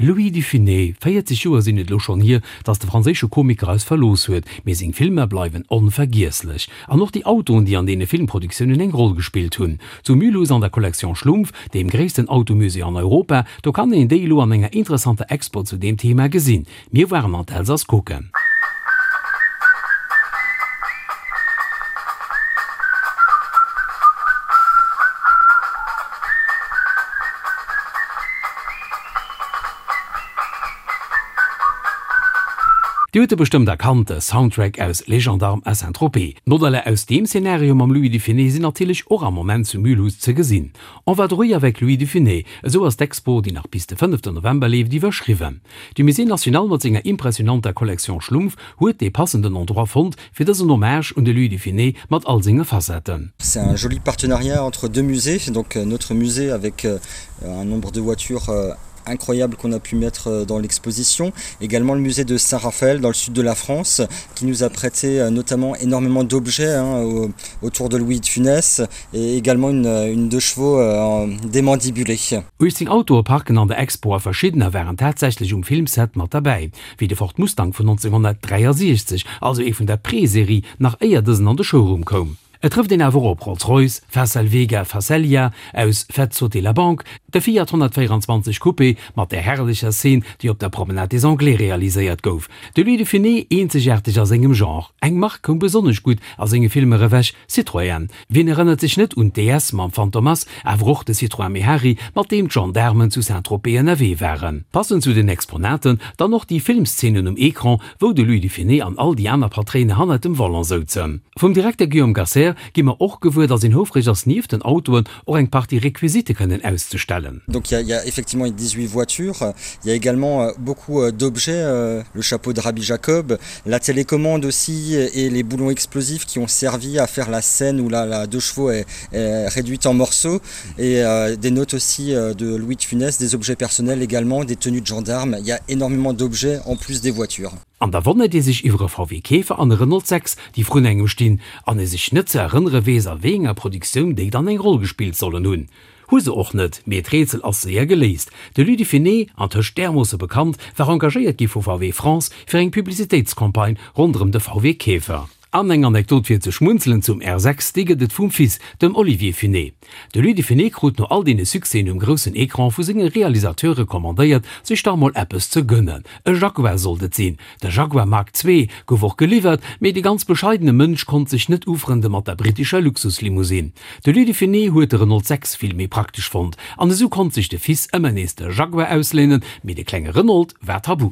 Louis de Funès, 40 Joer sinn et elo schonn hier, datt de franséische Komiker eis verlooss huet, mee seng Filmer bleiwen onvergiesslech. An och déi Autoen, déi an deene Filmproduktiounen eng Roll gespillt hunn. Zu Mulhouse an der Collection Schlumpf, deem gréissten Automusée an Europa, do kann een déi elo an enger interessanter Expo zu deem Thema gesinn. Mir waren an d'Elsass kucken. Dir hutt e bestëmmt erkannt, de Soundtrack aus Les Gendarmes à Saint-Tropez. D'Modeller aus deem Szenario mam Louis de Funès sinn natierlech och am Moment zu Mulhouse ze gesinn. En vadrouille avec Louis de Funès, esou ass d'Expo, déi nach bis de fënneften November leeft, iwwerschriwwen. De Musée National mat senger impressionanter Collection Schlumpf huet dee passenden Endroit fonnt, fir dësen Hommage un de Louis de Funès mat all senge Facetten. C'est un joli partenariat entre deux musées, donc notre musée avec un nombre de voitures incroyable qu'on a pu mettre dans l'exposition. Également le musée de Saint-Raphaël dans le sud de la France qui nous a prêté notamment énormément d'objets autour de Louis de Funès et également une, une deux chevaux démandibulée. 18 Autoe parken an der Expo a verschiddener waren tatsächlech um Filmset mat derbäi, wéi de Ford Mustang vun 1963, also ee vun der Pre-Serie, nach éier dësen an de Showroom koum. Et trëfft een awer op Rolls-Royce, Facel Vega Facellia aus Faites sauter la banque, de Fiat 124 Coupé mat där herrlecher Szene, déi op der Promenade des Anglais realiséiert gouf. De Louis de Funès, eenzegaarteg a sengem Genre. Eng Mark koum besonnesch gutt a senge Filmer ewech, Citroën. Wien erënnert sech net un d'DS mam Fantomas, awer och de Citroën Mehari, mat deem d'Gendaarmen zu Saint-Tropez ënnerwee waren. Passend zu den Exponaten dann och déi Filmszenen um Ecran, wou de Louis de Funès an all déi aner Patréine hannert dem Volant souzen. Vum Direkter Guillaume Gasser gi mer och gewuer, datt een houfreg ass, nieft den Autoen och eng Partie Requisite kënnen auszestellen. Donc il y a effectivement 18 voitures, il y a également beaucoup d'objets, le chapeau de Rabbi Jacob, la télécommande aussi et les boulons explosifs qui ont servi à faire la scène où la, la deux chevaux est, est réduite en morceaux et euh, des notes aussi de Louis de Funès, des objets personnels également, des tenues de gendarmes. Il y a énormément d'objets en plus des voitures. An da wonnert ee sech iwwer e VW Käfer an e Renault 6, déi vrun engem stinn, an ee sech net ze erënnere weess, a wéi enger Produktioun déi dann eng Roll gespillt sollen hunn. Hu se och net, mee d'Rätsel ass séier geléist, De Louis de Funès, antëscht därmoosse bekannt, war engagéiert gi vu VW France fir eng Publicitéitscampagne ronderëm de VW Käfer. An eng Anekdot fir ze schmunzelen zum R6, déi gëtt et vum Fils, dem Olivier Funès. De Louis de Funès krut no all deene Succèsen um groussen Ecran vu senge Realisateure commandéiert, sech dach mol eppes ze gënnen. E Jaguar sollt et sinn. De Jaguar Mark ii gouf och geliwwert, mee de ganz bescheidene Mënsch konnt sech net ufrënde mat der brittescher Luxuslimousine. De Louis de Funès huet de Renault 6 vill méi praktesch fonnt, an esou konnt sech de Fils ëmmer nees de Jaguar ausléinen, mee de klenge Renault war tabu.